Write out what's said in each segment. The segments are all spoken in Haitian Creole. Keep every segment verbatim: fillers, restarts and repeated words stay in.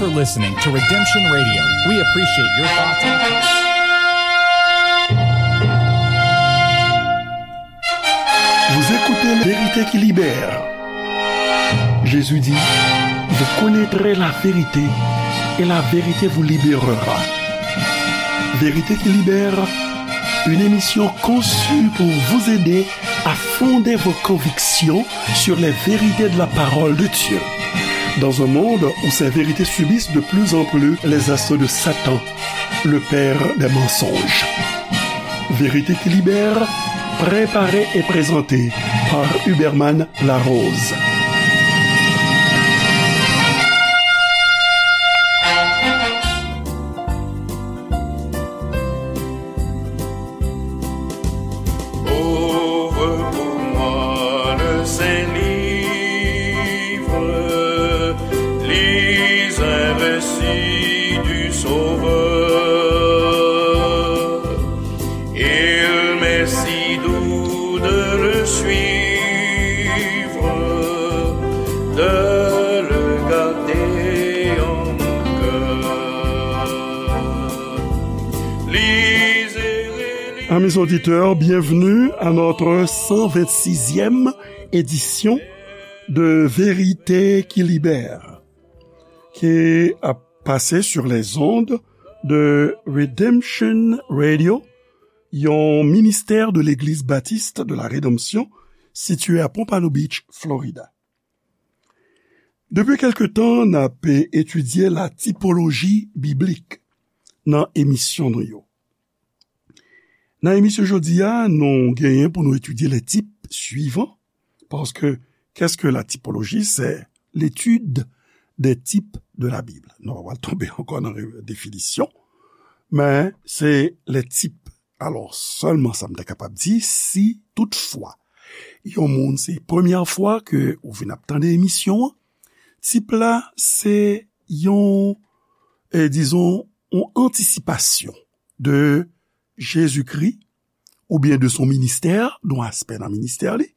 for listening to Redemption Radio. We appreciate your thoughts. Vous écoutez Vérité qui libère. Jésus dit, vous connaîtrez la vérité et la vérité vous libérera. Vérité qui libère, une émission conçue pour vous aider à fonder vos convictions sur les vérités de la parole de Dieu. Dans un monde où ces vérités subissent de plus en plus les assauts de Satan, le père des mensonges. Vérité qui libère, préparée et présentée par Huberman Larose. Ouvre pour moi le Saint-Livre, lis un récit du Sauveur. Il m'est si doux de le suivre, de le garder en mon cœur. Lisez et relisez. Amis auditeurs, bienvenue à notre cent vingt-sixième édition de Vérité qui libère, qui a passé sur les ondes de Redemption Radio, yon ministè de Legliz Batis de la Redanmsyon sitiye a Pompano Beach, Florida. Depi kèlke tan, n ap etidye la tipoloji biblik nan emisyon nou yo. Nan emisyon jodi a, nou genyen pou nou etidye les types suivants, paske qu'est-ce que la typologie? C'est l'étude des types de la Bible. Nou pa pral tonbe ankò nan re-, definisyon, men se les types. Alò, sèlman sa m ta kapab di, si toutfwa yon moun se premyè fwa ke ou vin ap tande emisyon an, tip la se yon, eh, dizon, yon antisipasyon de Jezikri oubyen de son ministè, de yon aspè nan ministè li,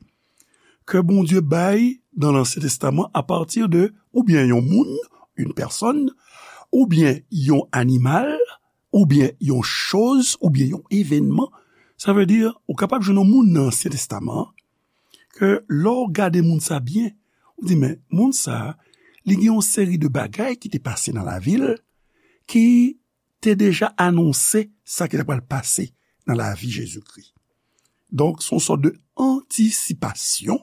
ke Bondye bay nan Lansyen Testaman apati de oubyen yon moun, une personne, oubyen yon animal, oubyen yon choz, oubyen yon evènman. Sa vle di, ou kapab jwenn yon moun nan Ansyen Testaman an, ke lè w gade moun sa byen, ou di, men, moun sa, li gen yon seri de bagay ki te pase nan lavi l, ki te deja anonse sa ki ta pral pase nan lavi Jezikri. Donk, se yon sòt de antisipasyon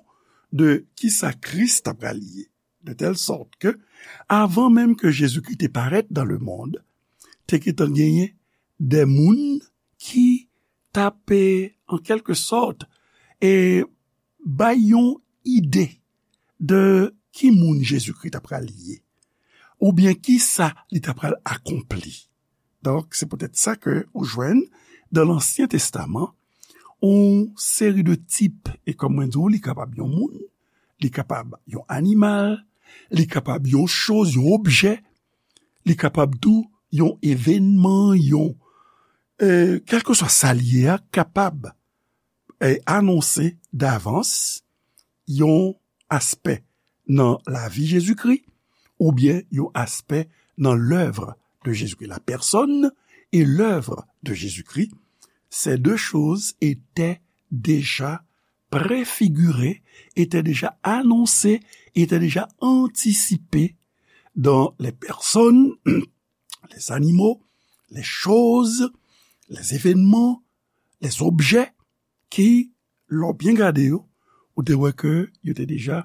de kisa Kris ta pral ye. De tèl sòt ke, avan menm ke Jezikri te parèt dans le monde, te gentan genyen de moun ki t ap, e, an kèlke sòt, e, bay yon ide de ki moun Jezikri ta pral ye, oubyen kisa li ta pral akonpli. Donk, se poutèt sa ke ou jwenn dan Lansyen Testaman yon seri de tip, e kòm mwen di w, li kapab yon moun, li kapab yon animal, li kapab yon choz, yon objè, li kapab tou yon evènman, yon, e, kèlkeswa sa l ye a, kapab, e, anonse davans yon aspè nan lavi Jezikri, oubyen yon aspè nan lèv de Jezikri. La personne et l'œuvre de Jésus-Christ, ces deux choses étaient déjà préfigurées, étaient déjà annoncées, étaient déjà anticipées dans les personnes, les animaux, les choses, les événements, les objets ki, lè w byen gade yo, ou te wè ke yo te deja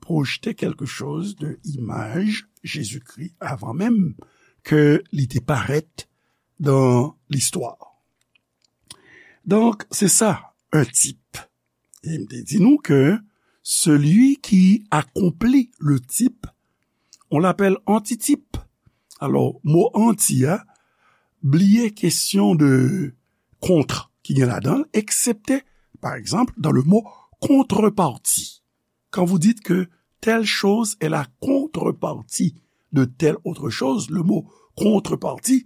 pwojte kèlke choz de imaj Jezikri avan menm ke li te parèt dan listwa. Donk, se sa, un type. E m te di nou ke celui qui accomplit le type, on l'appelle antitype. Alò, mo anti a, bliye kesyon de contre ki gen ladan l, eksepte, pa egzanp, dans le mot contrepartie. Quand vous dites que telle chose est la contrepartie de telle autre chose, le mot contrepartie,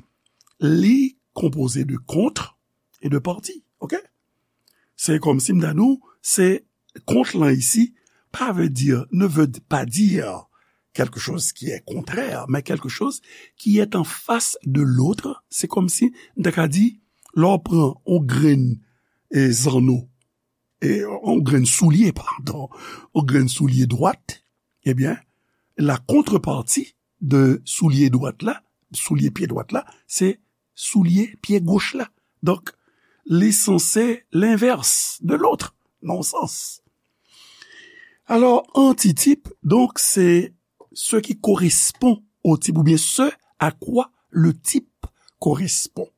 li konpoze de contre et de partie, ok? Se kòmsi m ta di w, se kont lan isi, pa vle di, ne veut pas dire quelque chose qui est contraire, mais quelque chose qui est en face de l'autre. Se kòmsi, m ta ka di, lè w pran yon grenn, e, zanno, e, yon grenn soulye, padon, yon grenn soulye dwat, ebyen, la contrepartie de soulye dwat la, soulye pye dwat la, se soulye pye goch la. Donk, li sanse l'inverse de l'autre, nan yon sans. Alò, antitip, donk, se ce qui correspond au type, oubyen ce à quoi le type correspond.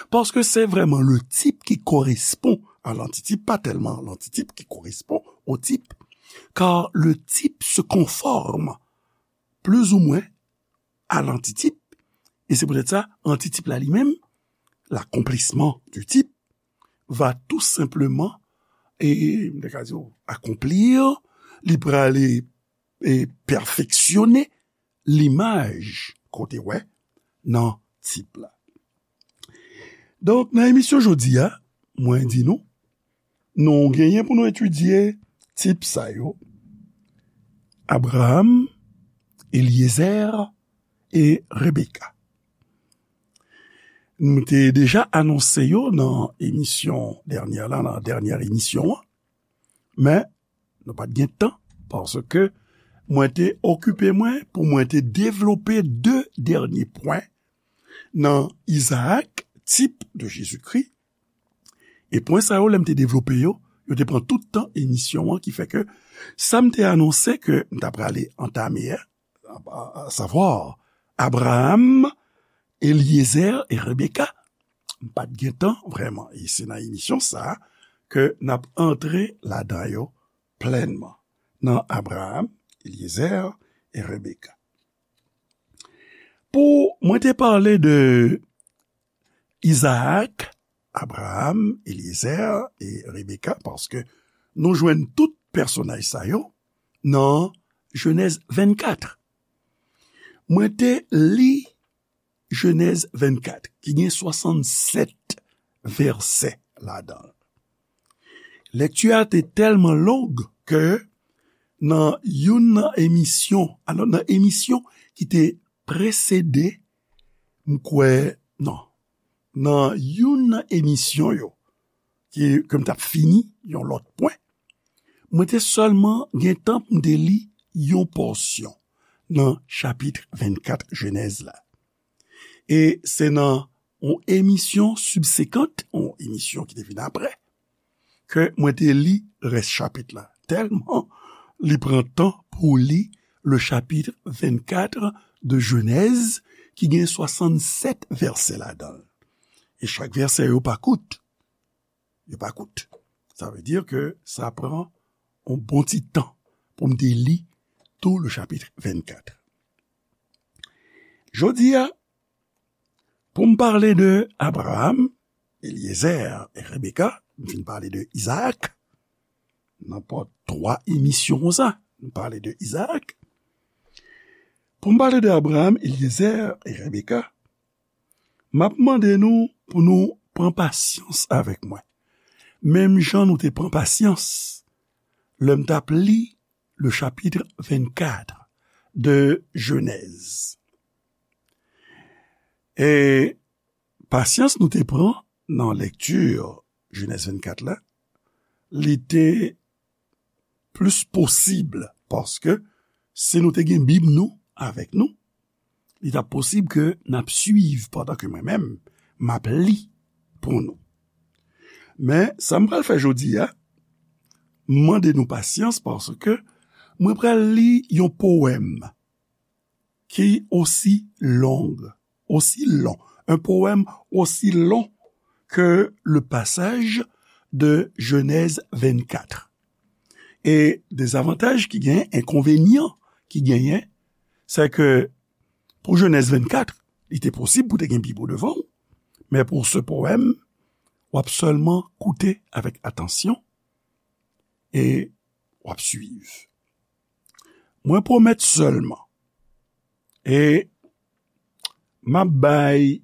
Paske se vrèman le type qui correspond à l'antitip, pa tèlman l'antitip qui correspond au type, car le type se conforme plus ou moins à l'antitip, e se poutèt sa, antitip la li menm, l'accomplissement du type, va tout simplement, e, m ta ka di w, accomplir, li prale, e, pèfeksyone limaj kote wè nan tip la. Donk, nan emisyon jodi a, mwen di nou, nou genyen pou nou etidye tip sa yo, Abraham, Eliezer e Rebeka. Nou te deja anonse yo nan emisyon dènyè la, nan dènyè emisyon an, men nou pa t gen tan, paske mwen te okipe mwen pou mwen te devlope de dènye pwen nan Izaak, tip de Jezikri. E pwen sa yo, lè m te devlope yo, yo te pran tout tan emisyon an, ki fè ke sa m te anonse ke m ta prale antame a, a, a savwa Abraham, Eliezer e Rebeka, m pa t gen tan vrèman. E se nan emisyon sa a ke n ap antre ladan yo plènman, nan Abraham, Eliezer e Rebeka. Pou mwen te pale de Izaak, Abraham, Eliezer e Rebeka, paske nou jwenn tout pèsonaj sa yo nan Jenèz vennkat. Mwen te li Jenèz vennkat, ki gen swasannsèt vèsè ladan l. Lekti a te tèlman long ke nan youn nan emisyon, alò, nan emisyon ki te presede, m kwè, non, nan youn nan emisyon yo, ki, ke m t ap fini yon lòt pwen, mwen te sèlman gen tan pou m te li yon pòsyon nan chapit vennkat Jenèz la. E se nan yon emisyon sibsekant, yon emisyon ki te vin apre, ke mwen te li rès chapit la. Tèlman li pran tan pou li le chapitre vingt-quatre de Genèse, ki gen swasannsèt vèsè ladan l. E chak vèsè yo pa kout. Yo pa kout. Sa vle di ke sa pran yon bon ti tan pou m te li tou le chapitre vingt-quatre. Jodi a, pou m pale de Abraham, Eliezer e Rebeka, m fin pale de Izaak. Nan pa twa emisyon konsa, m pale de Izaak. Pou m pale de Abraham, Eliezer e Rebeka, m ap mande nou pou nou pran pasyans avèk mwen. Menm jan nou te pran pasyans lè m t ap li le chapitre vingt-quatre de Genèse. E pasyans nou te pran nan lekti Genèse vingt-quatre la, li te plis posib, paske si nou te gen Bib nou avèk nou, li t ap posib ke n ap swiv pandan ke mwen menm, m ap li pou nou. Men, sa m pral fè jodi a, m mande nou pasyans paske mwen pral li yon powèm ki osi long, aussi long, un poème aussi long que le passage de Genèse vingt-quatre. E dezavantaj ki genyen, enkonvenyan ki genyen, se ke pou Genèse vingt-quatre, li te posib pou te gen Bib ou devan w, men pou ce poème, w ap sèlman koute avèk atansyon e w ap swiv. Mwen pwomèt sèlman, e m ap bay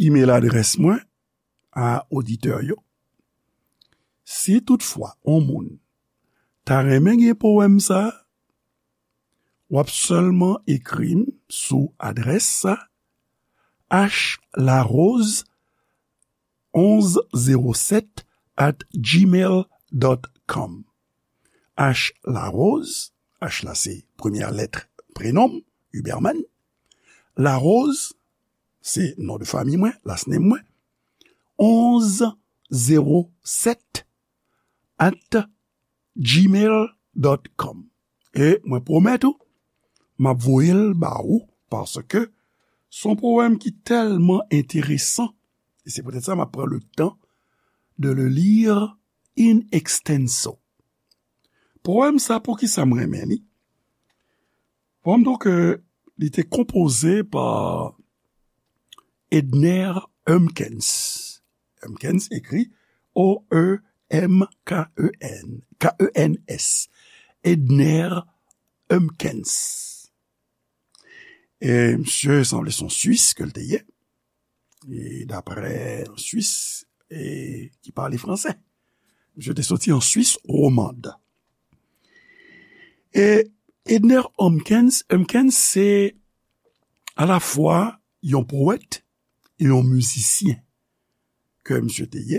imèl adrès mwen a oditè yo. Si toutfwa yon moun ta renmen gen powèm sa a, w ap sèlman ekri m sou adrès sa, h larose onz zewo sèt at gmail dot com. H Larose, H la se premyè lèt prenon m, Huberman. Larose, se non de fanmi mwen, last name mwen. Onz zewo sèt at gmail dot com. E mwen pwomèt ou, m ap voye l ba ou, paske se yon powèm ki tèlman enteresan, e se poutèt sa m ap pran le tan de le lire in extenso. Powèm sa, poukisa m renmen li? Powèm, donk, euh, li te konpoze pa Edner Humpkens. Humpkens ekri O E M K E N, K E N S. Edner Humpkens. E misye sanble se yon Swis ke l te ye. E daprè yon Swis e ki pale fransè. Misye te soti an Swis womand. E Edner Humpkens, Humpkens se alafwa yon powèt e yon mizisyen ke misye te ye,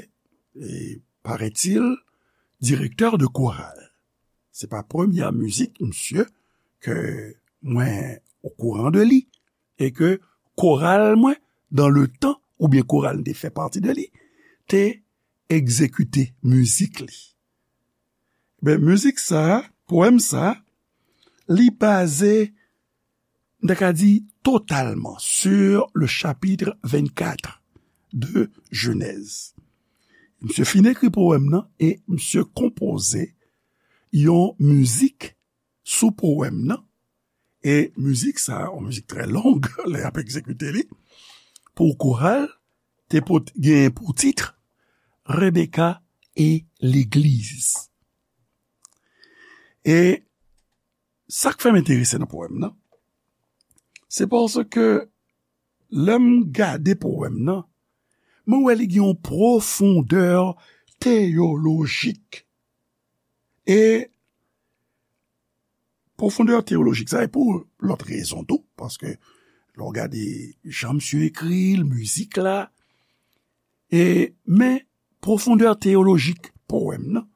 e, paraît-il, direktè de koral. Se pa premyè mizik misye ke mwen okouran de li, e ke koral mwen, dans le temps, oubyen koral m te fè pati de li, te egzekite mizik li. Ben, mizik sa, powèm sa, li baze, m ta ka di, totalman sur le chapitre vingt-quatre de Genèse. Misye fin ekri powèm nan e misye konpoze yon mizik sou powèm nan. E mizik sa, yon mizik trè long, lè y ap egzekite li, pou koral, te pot-, genyen pou tit Rebecca et l'église. E sa k fè m enterese nan powèm nan, se paske lè m gade powèm nan, mwen wè li gen yon pwofondè teyolojik. E pwofondè teyolojik sa, e pou lòt rezon tou, paske lè w gade jan misye ekri l, mizik la, e, men pwofondè teyolojik powèm nan,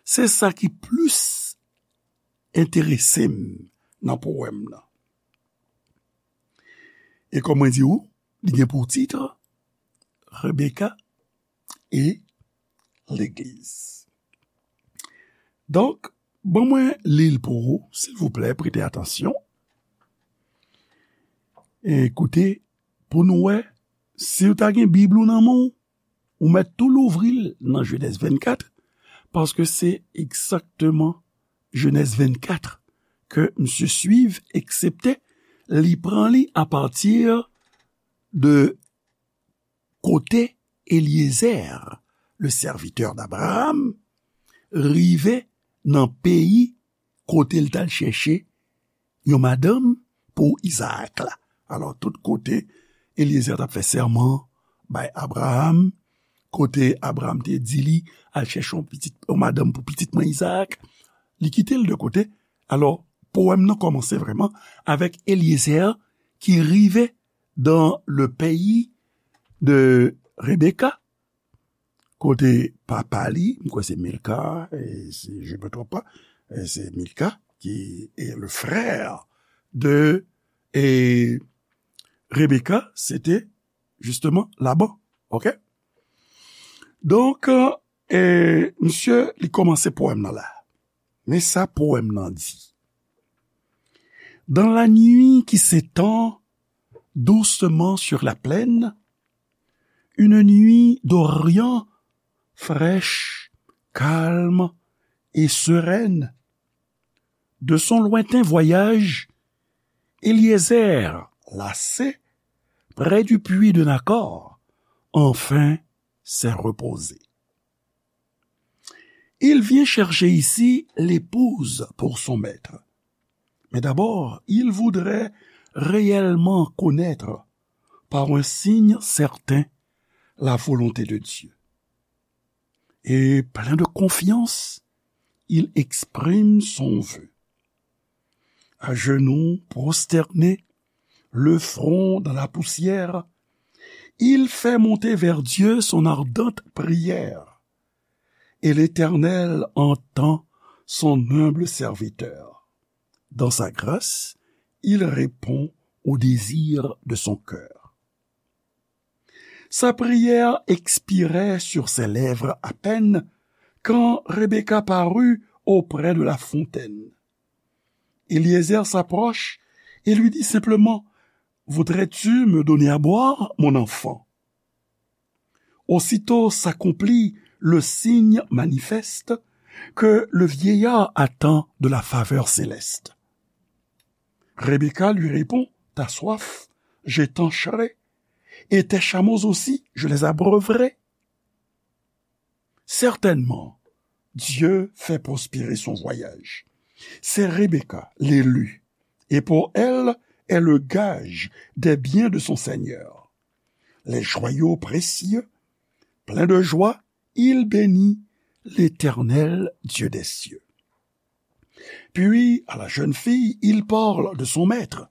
se sa ki plis enterese m nan powèm nan. E kòm mwen di w, li gen pou tit Rebecca et l'église. Donk, ban mwen li l pou ou, silvouplè, prete atansyon. E koute, pou nou wè, si w ta gen Bib ou nan men w, ou mèt tou louvri l nan Jenèz vennkat, paske se egzakteman Jenèz vennkat ke misye swiv, eksepte li pran li apati de kote Eliezer, le serviteur d'Abraham, rive nan peyi kote l t al chèche yon madanm pou Izaak la. Alò, tout kote Eliezer t ap fè sèman bay Abraham, kote Abraham te di li, "Al chèche yon pitit, yon madanm pou pitit mwen Izaak," li kite l de kote. Alò, powèm nan kòmanse vrèman avèk Eliezer ki rive dans le pays de Rebecca, kote papa li, m kwè se Milka, e si je me trompe pas, e se Milka ki est le frère de, e Rebecca, se te justement Laban. Ok? Donk, e misye, li kòmanse powèm nan la. Men sa powèm nan di. Dans la nuit qui s'étend doucement sur la plaine, une nuit d'Orient fraîche, calme et sereine. De son lointain voyage, Eliezer, lassé, près du puits de Nakor, enfin s'est reposé. Il vient chercher ici l'épouse pour son maître. Mais d'abord, il voudrait réellement connaître par un signe certain la volonté de Dieu. Et plein de confiance, il exprime son vœu. À genoux, prosterné, le front dans la poussière, il fait monter vers Dieu son ardente prière. Et l'Éternel entend son humble serviteur. Dans sa grâce, il répond au désir de son cœur. Sa prière expirait sur ses lèvres à peine quand Rebecca parut auprès de la fontaine. Eliezer s'approche et lui dit simplement : « Voudrais-tu me donner à boire, mon enfant ? » Aussitôt s'accomplit le signe manifeste que le vieillard attend de la faveur céleste. Rebecca lui répond : « Ta soif, je t'encherai, et tes chameaux aussi, je les abreuverai. » Certainement, Dieu fait prospérer son voyage. C'est Rebecca, l'élue, et pour elle est le gage des biens de son Seigneur. Les joyaux précieux, plein de joie, il bénit l'Éternel, Dieu des cieux. Puis, à la jeune fille, il parle de son maître.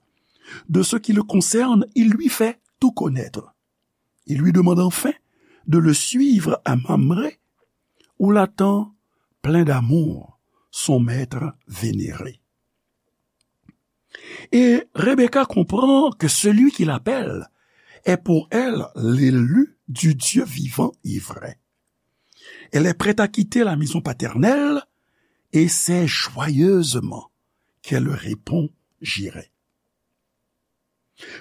De ce qui le concerne, il lui fait tout connaître. Il lui demande enfin de le suivre à Mamré, où l'attend plein d'amour son maître vénéré. Et Rebecca comprend que celui qui l'appelle est pour elle l'élu du Dieu vivant et vrai. Elle est prête à quitter la maison paternelle et c'est joyeusement qu'elle répond : « J'irai. »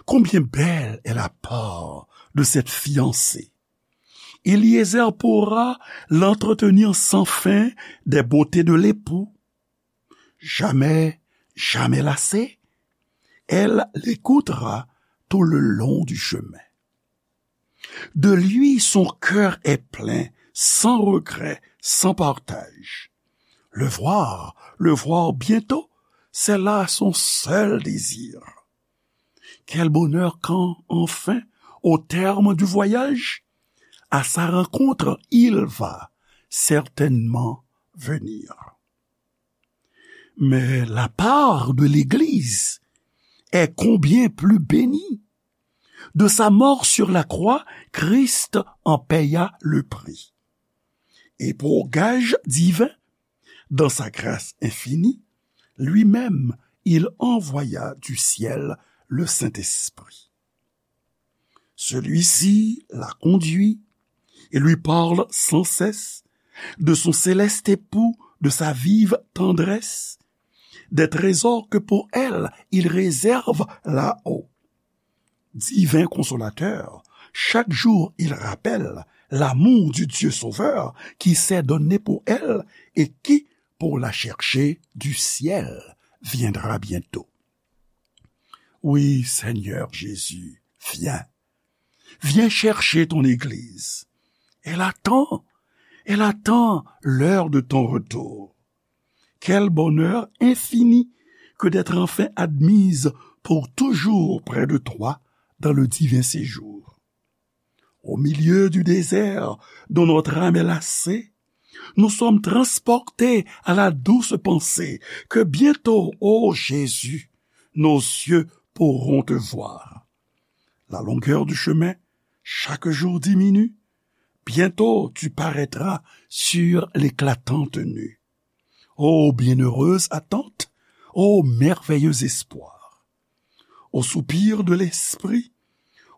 Combien belle est la part de cette fiancée ! Eliezer pourra l'entretenir sans fin des beautés de l'époux. Jamais, jamais lassée, elle l'écoutera tout le long du chemin. De lui, son cœur est plein, sans regret, sans partage. Le voir, le voir bientôt, c'est là son seul désir. Quel bonheur quand, enfin, au terme du voyage, à sa rencontre, il va certainement venir. Mais la part de l'Église est combien plus bénie. De sa mort sur la croix, Christ en paya le prix. Et pour gage divin, dans sa grâce infinie, lui-même, il envoya du ciel le Saint-Esprit. Celui-ci la conduit et lui parle sans cesse de son céleste époux, de sa vive tendresse, des trésors que pour elle il réserve là-haut. Divin consolateur, chaque jour il rappelle l'amour du Dieu Sauveur qui s'est donné pour elle et qui, pour la chercher du ciel, viendra bientôt. Oui, Seigneur Jésus, viens. Viens chercher ton Église. Elle attend, elle attend l'heure de ton retour. Quel bonheur infini que d'être enfin admise pour toujours près de toi dans le divin séjour. Au milieu du désert dont notre âme est lassée, nous sommes transportés à la douce pensée que bientôt, ô Jésus, nos yeux pourront te voir. La longueur du chemin, chaque jour diminue. Bientôt tu paraîtras sur l'éclatante nue. Ô bienheureuse attente, ô merveilleux espoir. Au soupir de l'esprit,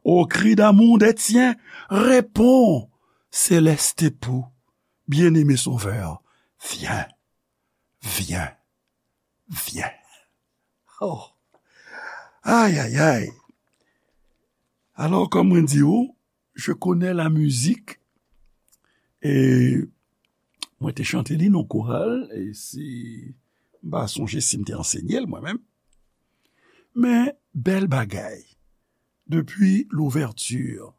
au cri d'amour des tiens, réponds, céleste époux, bien-aimé Sauveur, viens, viens, viens. Oh. Ay, ay, ay. Alò, kòm mwen di ou, je connais la musique. E mwen te chante li nan koral, e si m pa sonje si m te ansenye l mwen menm. Men, bèl bagay. Depuis l'ouverture.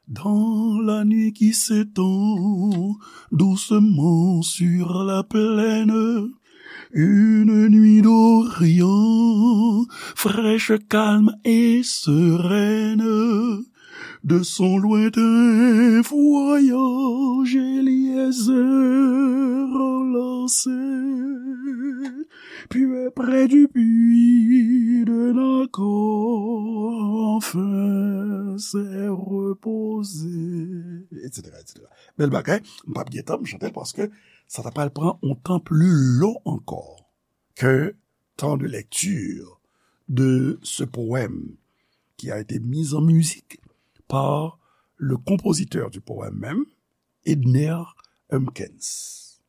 Dans la nuit qui s'étend doucement sur la plaine, une nuit d'Orient, fraîche, calme et sereine, De son lointain voyage, Éliézer lancé, puis près du puits de Nakor, enfin s'est reposé, et cetera, et cetera. Bèl bagay, m p ap gen tan, m chante l paske sa ta pral pran yon tan pli lon ankò ke temps de lecture de ce poème qui a été mis en musique par le compositeur du poème même, Edner Humpkins.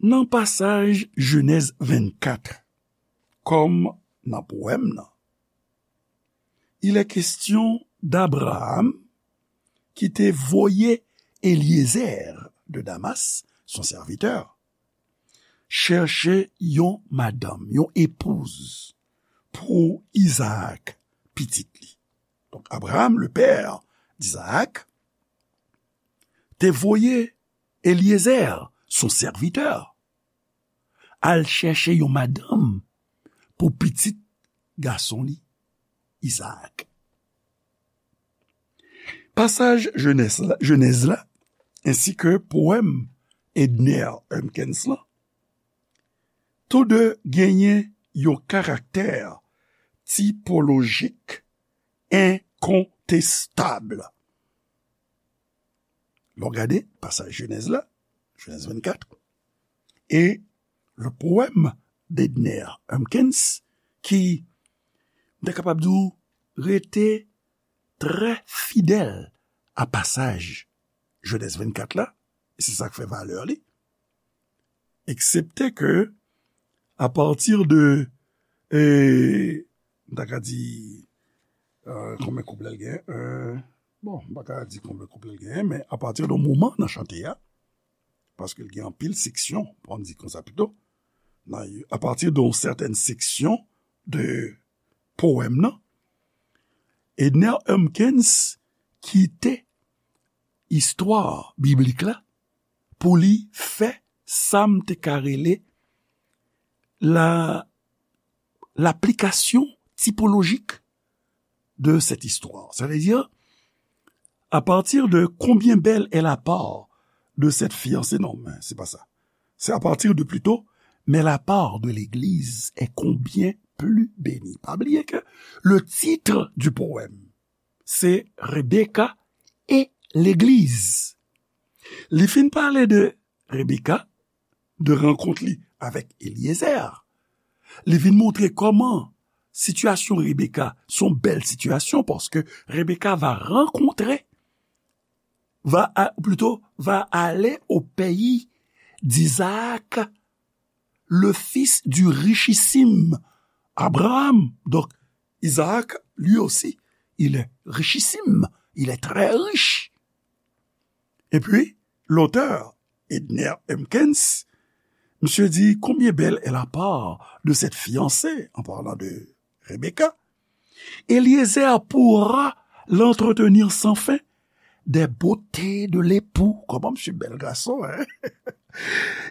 Nan pasaj Jenèz vennkat, kòm nan powèm nan, il est question d'Abraham ki te voye Eliezer de Damas, son sèvitè, chèche yon madanm, yon epouz pou Izaak, pitit li. Donk, Abraham, le père d'Isaac, te voye Eliezer, son sèvitè, al chèche yon madanm pou pitit gason li, Izaak. Pasaj Jenèz la, Jenèz la, ensi ke powèm Edner Humpkins lan, tou de genyen yon karaktè tipolojik enkontestab. Lè w gade pasaj Jenèz la, Jenèz vennkat, e le poème d'Edner Humpkins, ki, m ta kapab di w, rete trè fidèl a pasaj Jenèz vennkat la, e se sa k fè valè li, eksepte ke, apati de, e, m ta ka di, e, konbyen kouplè l gen, e, bon, m pa ka di konbyen kouplè l gen, men apati de yon moman nan chante a, paske l gen anpil seksyon, pou n di konsa pito, nan, apati de yon sètèn seksyon de powèm nan, Edner Humpkins kite istwa biblik la pou li fè sa m te ka rele la, l'application typologique de cette histoire. Sa vle di, à partir de combien belle est la part de cette fiancée, non, men se pa sa. C'est à partir de plutôt, mais la part de l'Église est combien plus bénie. Pa bliye ke le titre du poème, se Rebecca et l'Église. Li fin pale de Rebecca, de rankont li avèk Eliezer. Li vin montre kòman sitiyasyon Rebecca se yon bèl sitiyasyon, paske Rebecca va rencontrer, va, a, plutôt, va aller au pays d'Isaac, le fils du richissime Abraham. Donc, Isaac, lui aussi, il est richissime, il est très riche. Et puis, l'auteur, Edner Humpkins, monsieur dit, combien belle est la part de cette fiancée, en parlant de Rebecca. Eliezer pourra l'entretenir sans fin des beautés de l'époux. Kòman misye bèl gason, hein?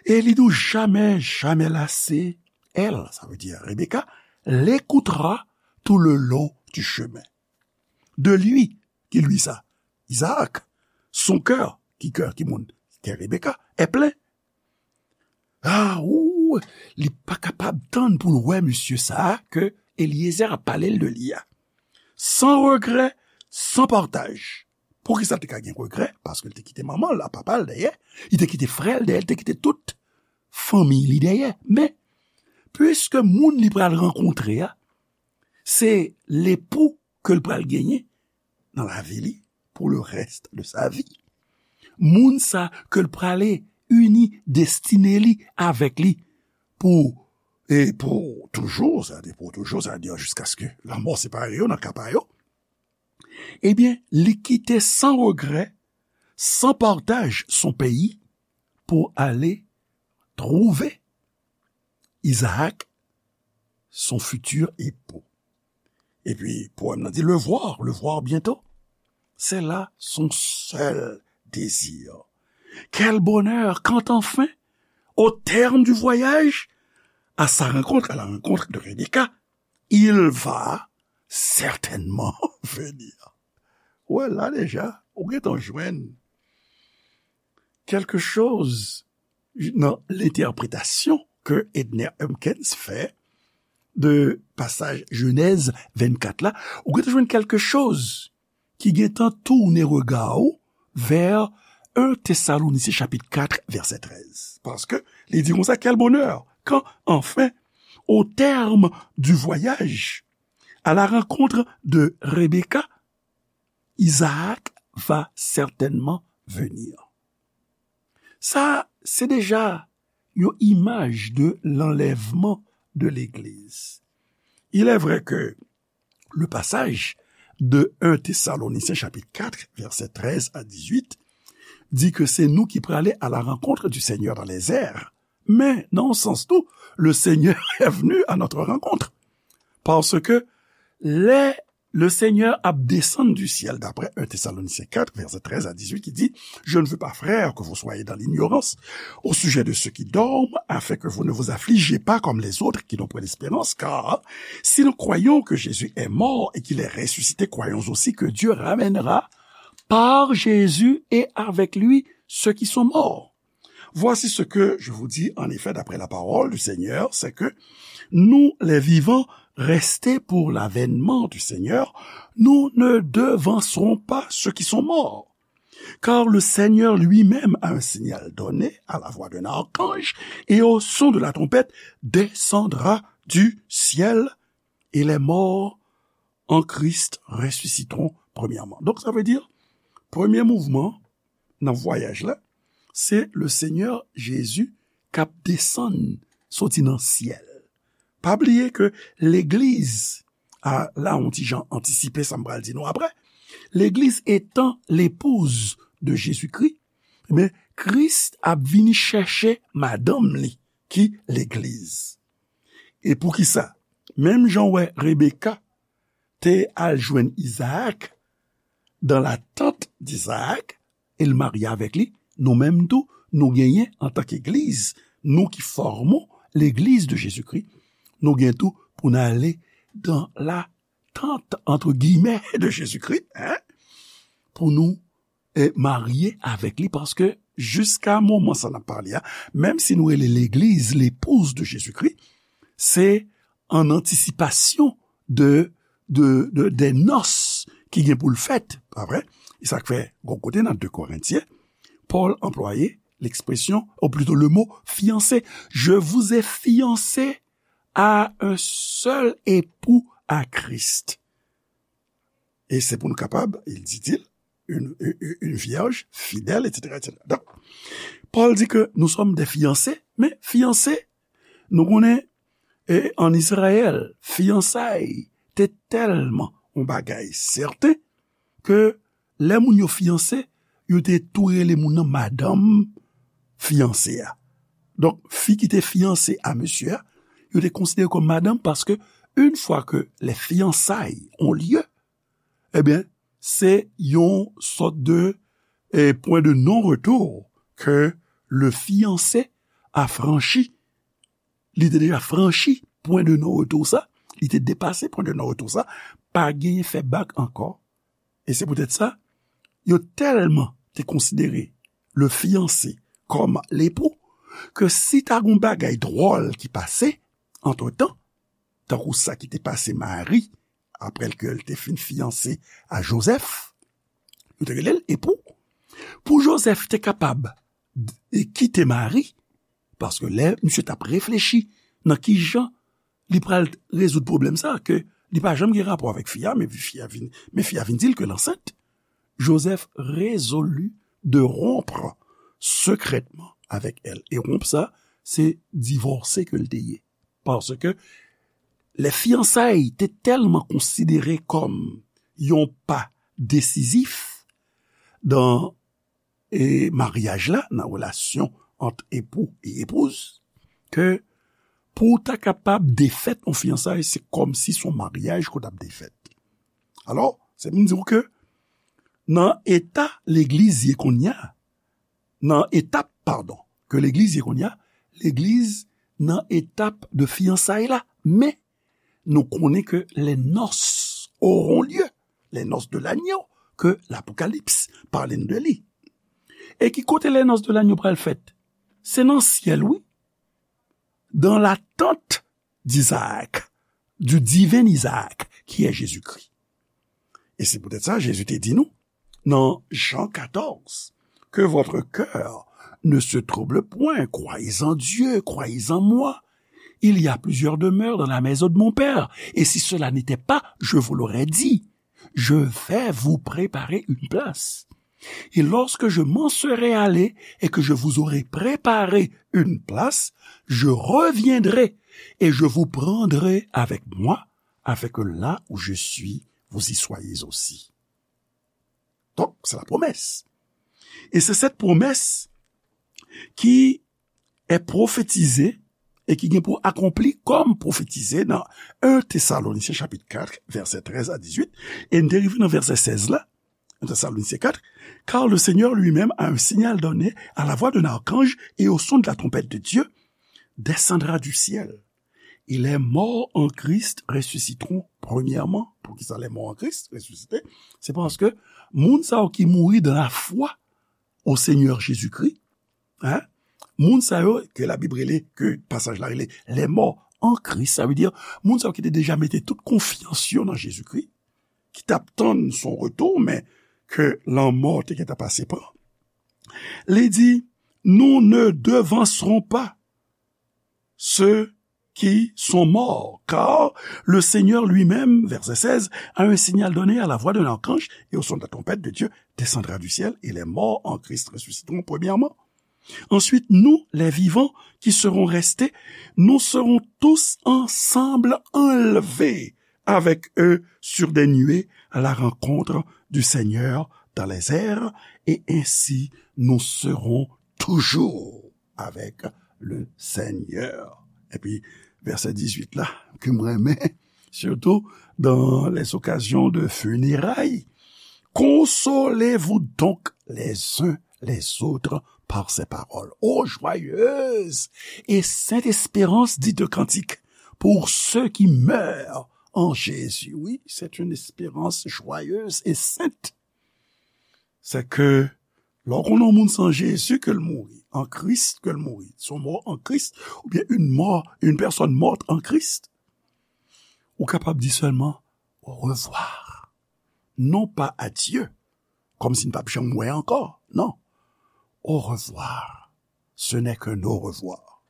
Et li di w jamais, jamais lassé. Elle, ça veut dire Rebecca, l'écoutera tout le long du chemin. De lui, ki li sa? Isaac, son cœur, ki kè, ki moun? Kè Rebecca, est plein. Ah, ou, li pa kapab tann pou l wè misye sa a ke Eliezer ap pale l de li a. Sans regret, sans partage. Poukisa l te ka gen regrè? Paske l te kite manman l, papa l dèyè, li te kite frè l dèyè, li te kite tout fanmi li dèyè. Men, piske moun li pral rankontre a, se lepou ke l pral genyen nan lavi li pour le reste de sa vie. Moun sa ke l prale ini destine li avèk li pou, e pou toujou, sa vle di pou toujou, sa vle di jiskaske lanmò separe yo nan ka pa yo, ebyen, li kite san regrè, san partaj son peyi pou ale twouve Izaak, son futur époux. Epi, powèm nan di, le voir, le voir bientôt. C'est là son seul désir. Quel bonheur quand enfin, au terme du voyage, à sa rencontre, à la rencontre de Rebecca, il va certainement venir. Ou wè la deja, ou gentan jwenn quelque chose nan lenterpretasyon ke Edner Humpkins fè de pasaj Jenèz vennkat la, ou gentan jwenn quelque chose ki gentan tounen rega w vè en Tesalonisyen chapit kat vèsè trèz. Paske li di konsa, quel bonheur quand enfin, au terme du voyage, à la rencontre de Rebecca, Isaac va certainement venir. Sa, se deja yon imaj de l'enlèvement de l'Église. Il est vrai que le passage de un Thessaloniciens chapitre quatre, versets treize à dix-huit, dit que c'est nous qui pralé à la rencontre du Seigneur dans les airs. Men, nan yon sans tou, le Seigneur est venu à notre rencontre. Paske lè le Seigneur ap desann du ciel, d'après un Thessaloniciens quatre, versets treize à dix-huit, qui dit, je ne veux pas, frères, que vous soyez dans l'ignorance au sujet de ceux qui dorment, afin que vous ne vous affligiez pas comme les autres qui n'ont point d'espérance, car si nous croyons que Jésus est mort et qu'il est ressuscité, croyons aussi que Dieu ramènera par Jésus et avec lui ceux qui sont morts. Voici ce que je vous dis en effet d'après la parole du Seigneur, c'est que nous, les vivants, restés pour l'avènement du Seigneur, nous ne devancerons pas ceux qui sont morts. Car le Seigneur lui-même, à un signal donné, à la voix d'un archange et au son de la trompette, descendra du ciel, et les morts en Christ ressusciteront premièrement. Donk, sa vle di, premye mouvman nan vwayaj la, se le Seigneur Jésus k ap desann soti nan syèl. Pa bliye ke legliz, a, la, yon ti jan antisipe sa m pral di nou apre, legliz etan l'épouse de Jésus-Christ, ebyen, Kris ap vini chèche madanm li, ki legliz. E poukisa? Menm jan w wè Rebeka te al jwenn Izaak, dans l'attente d'Isaac, e l marye avèk li, nou menm tou, nou genyen antanke egliz, nou ki fòme legliz de Jezikri, nou gen tou pou n ale dans l'attente, entre guillemets, de Jezikri, en, pou nou e marye avèk li, paske jiska moman sa n ap pale a, menm si nou rele legliz l'épouse de Jésus-Christ, se an antisipasyon de, de, de, des noces ki gen pou l fèt, pa vre? E sa k fè, gon kote nan de Korentyen, Pòl anplwaye l'expression, ou plutôt le mot fiancé. Je vous ai fiancé à un seul époux, à Christ. E se pou nou kapab, il dit-il, une, une, une vierge fidèle, et cetera, et cetera. Donk, Pòl di ke nou sòm de fiyanse, men fiyanse, nou konnen, e, ann Izrayèl, fiyansay te tèlman yon bagay sèten ke lè moun yo fiyanse, yo te tou rele moun nan madanm fiyanse a. Donk, fi ki te fiyanse a mesye a, yo te konsidere kòm madanm paske, une fois que les fiançailles ont lieu, ebyen, se yon sòt de, eh, point de non-retour ke le fiancé a franchi. Li te deja franchi point de non-retour sa, li te depase point de non-retour sa, pa genyen fè bak ankò. E se poutèt sa, yo tèlman te konsidere le fiancé kòm lepou, ke si ta gon bagay dwòl ki pase antretan, tankou sa ki te pase Mari, apre ke l te fin fiyanse a Jozèf, yo te rele l epou. Pou Jozèf te kapab d-, e kite Mari, paske lè misye t ap reflechi nan ki jan li pral rezoud pwoblèm sa, ke li pa janm gen rapò avèk fi a, men fi a vin, men fi a vin di l ke l ansent, Joseph résolut de rompre secrètement avec elle. E wonp sa, se divòse ke l te ye. Paske lè fiyansay te tèlman konsidere kòm yon pa desizif nan, e, maryaj la, nan relasyon ant epou e epouz, ke pou w ta kapab defèt yon fiyansay, se kòmsi se yon maryaj ke w t ap defèt. Alò, se pou m di w ke nan eta legliz ye kounye a, nan etap, padon, ke legliz ye kounye a, legliz nan etap de fiyansay la. Men, nou konnen ke les noces auront lieu, les noces de l'agneau, ke Lapokalips pale n de li. E ki kote les noces de l'agneau pral fèt? Se nan syèl, wi. Dans la tente d'Isaac, du divin Isaac, qui est Jésus-Christ. E se poutèt sa, Jezi te di nou, nan Jan katòz, que votre cœur ne se trouble point, croyez en Dieu, croyez en moi. Il y a plusieurs demeures dans la maison de mon Père, et si cela n'était pas, je vous l'aurais dit. Je vais vous préparer une place. Et lorsque je m'en serai allé et que je vous aurai préparé une place, je reviendrai et je vous prendrai avec moi, afin que là où je suis, vous y soyez aussi. Donk, se la pwomès. E se sèt pwomès ki est prophétisé et ki gen pou akonpli kòm pwofetize nan un Thessaloniciens chapitre quatre, verset treize à dix-huit, e n te rive nan vèsè sèz la, un Thessaloniciens quatre, car le Seigneur lui-même, à un signal donné, à la voix d'un archange et au son de la trompette de Dieu, descendra du ciel. Et les morts en Christ ressusciteront premièrement. Poukisa les morts en Christ ressusciteront? Se paske moun sa yo ki mouri dans la foi au Seigneur Jésus-Christ, hein? Moun sa yo ke Labib rele, ke pasaj la rele les morts en Christ, sa vle di moun sa yo ki te deja mete tout konfyans yo nan Jezikri, ki t ap tann son retou, men ke lanmò te gentan pase pran. Li di, nous ne devancerons pas ceux qui sont morts, car le Seigneur lui-même, verset seize, à un signal donné, à la voix d'un archange et au son de la trompette de Dieu, descendra du ciel, et les morts en Christ ressusciteront premièrement. Ensuite, nous, les vivants qui serons restés, nous serons tous ensemble enlevés avec eux sur des nuées à la rencontre du Seigneur dans les airs, et ainsi nous serons toujours avec le Seigneur. Epi vèsè dizuit la, ke m renmen, surtout dans les occasions de funérailles, consolez-vous donc les uns les autres par ces paroles. Ô joyeuse et sainte espérance, dit le cantique, pour ceux qui meurent en Jésus. Oui, c'est une espérance joyeuse et sainte. C'est que lè w konn yon moun se an Jezi ke l mouri, an Kris ke l mouri, son mort en Christ, oubyen une mort, une personne morte en Christ, ou kapab di sèlman au revoir. Non pas adieu, kòmsi n p ap janm wè ankò. Non. Au revoir. Ce n'est qu'un au revoir.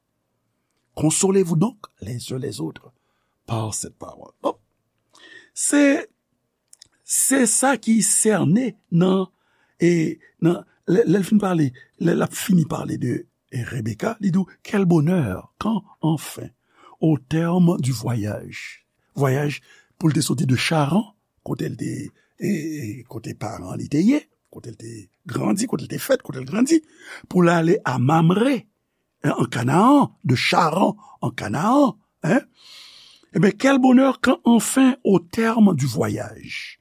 Consolez-vous donc les uns les autres par cette parole. Bon. Se, se sa ki sène nan, e, nan, lè, lè l fin pale, lè l ap fini pale de, e, Rebecca, li di w, quel bonheur, quand enfin, au terme du voyage, vwayaj pou l te soti de Charan, kote l te, e, e, kote paran li te ye, kote l te grandi, kote l te fèt, kote l grandi, pou l ale a Mamre, en, en Canaan, de Charan en Canaan, hein? Eh bien, quel bonheur quand enfin, au terme du voyage,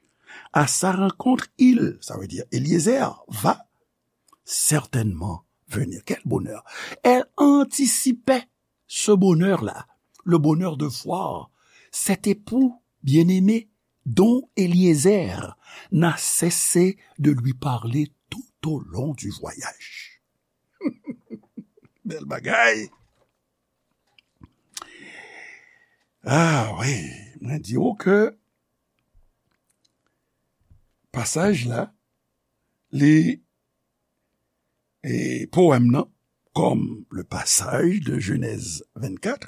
à sa rencontre, il, ça veut dire Eliezer, va certainement venir. Quel bonheur! Elle anticipait ce bonheur-là, le bonheur de voir cet époux bien-aimé dont Eliezer n'a cessé de lui parler tout au long du voyage. Bèl bagay. Ah wi, mwen di w ke pasaj la, li, e powèm nan, comme le passage de Genèse vingt-quatre,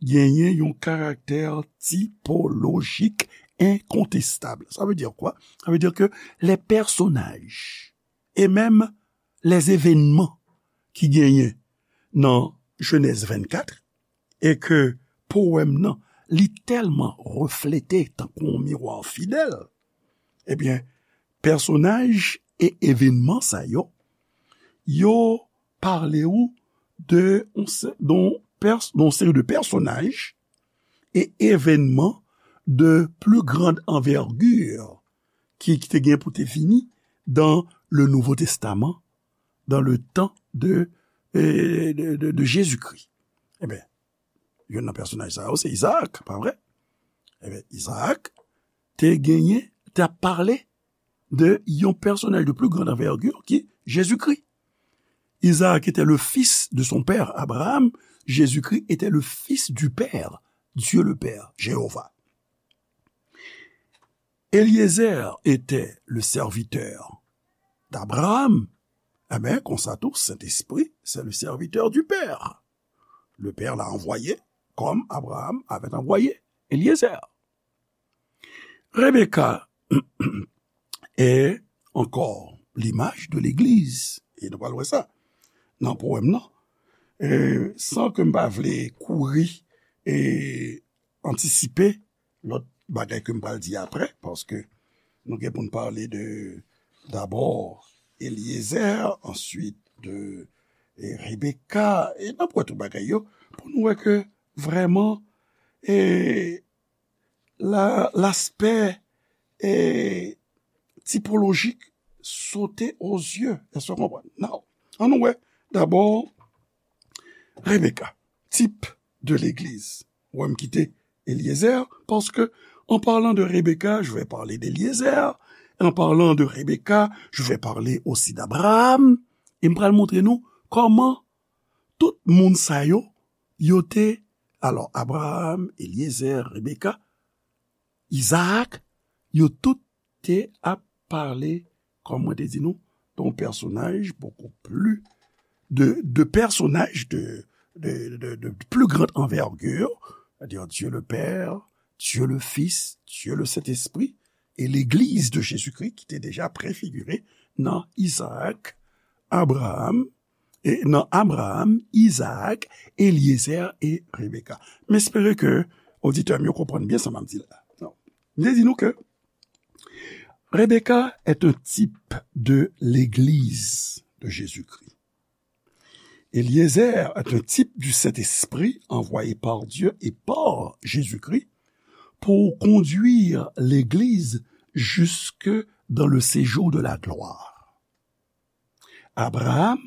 genyen yon karaktè tipolojik enkontestab. Sa vle di kwa? Sa vle di ke les personnages et même les événements ki genyen nan Genèse vingt-quatre, e ke powèm nan, li tèlman reflete tankou yon miwa fidèl, ebyen, pèsonaj e evènman sa yo, yo pale w de yon se-, don pès-, don seri de pèsonaj e evènman de plus grande envergure ki, ki te gen pou te vini dans le Nouveau Testament, dans le temps de, euh, de, de, de Jésus-Christ. Ebyen, youn nan pèsonaj sa yo, se Izaak, pa vre? Ebyen, Izaak, te genyen, te ap pale de yon pèsonaj de plus grande envergure ki Jezikri. Isaac était le fils de son père Abraham, Jésus-Christ était le fils du Père, Dieu le Père, Jéhovah. Eliezer était le serviteur d'Abraham. Amen. Konsa tou, Sentespri, c'est le serviteur du Père. Le Père l'a envoyé comme Abraham avait envoyé Eliezer. Rebecca est encore l'image de l'Église. E nou pral wè sa nan powèm nan. E, san ke m pa vle kouri e antisipe lòt bagay ke m pral di apre, paske nou gen pou n pale de, dabò, Eliezer, answit de, e, Rebecca, e n ap wè tout bagay yo, pou nou wè ke vrèman, e, la, l'aspect, e, typologique sautait aux yeux. Èske w konprann? Now, ann nou wè, dabò, Rebecca, type de l'Église. Ou wè m kite Eliezer, parce que en parlant de Rebecca, je vais parler d'Eliezer. En parlant de Rebecca, je vais parler aussi d'Abraham. E m pral montre nou kòman tout moun sa yo, yo te, alò, Abraham, Eliezer, Rebecca, Isaac, yo tout te ap pale, kòm mwen te di nou, d'un personnage beaucoup plus, de, de personnages de, de, de, de plus grande envergure, c'est-à-dire Dieu le Père, Dieu le Fils, Dieu le Saint-Esprit, et l'Église de Jésus-Christ ki te deja prefigire nan Isaac, Abraham, e nan Abraham, Isaac, Eliezer e Rebecca. M espere ke oditè m yo konprann byen sa m ap di la. M te di nou ke Rebecca est un type de l'Église de Jésus-Christ. Eliezer est un type du Saint-Esprit envoyé par Dieu et par Jésus-Christ pour conduire l'Église jusque dans le séjour de la gloire. Abraham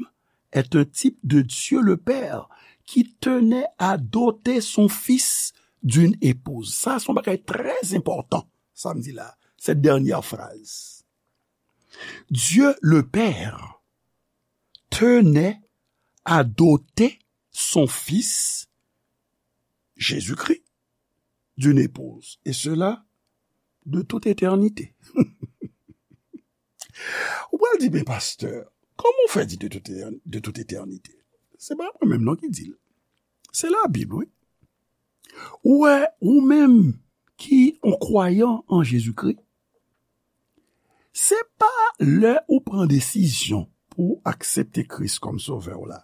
est un type de Dieu le Père qui tenait à doter son fils d'une épouse. Sa, se yon bagay trè enpòtan, sa m di la, cette dernière phrase. Dieu le Père tenait à doter son fils, Jésus-Christ, d'une épouse, et cela de toute éternité. Ou pral di, "Men pastè, kòman w fè di de toute, de toute éternité?" Se pa mwen menm non ki di l. Se Labib, wi. Ou wè, ou menm ki yon kwayan an Jezikri, se pa lè ou pran desizyon pou w aksepte Kris kòm Sovè w la.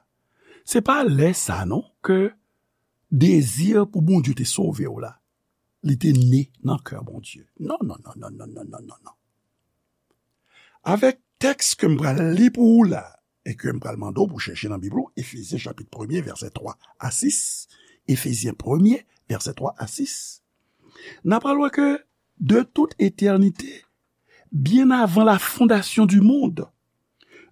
Se pa lè sa non ke dezi pou Bondye te sove w la, li te ne nan kè Bondye. Non, non, non, non, non, non, non, non, non. Avèk tèks ke m pral li pou ou la, e ke m pral mande w pou chèche nan Bib ou, Efezyen chapit premye, vèsè twa a sis, Efezyen premye, vèsè twa a sis, n a pral wè ke de toute éternité, bien avant la fondation du monde,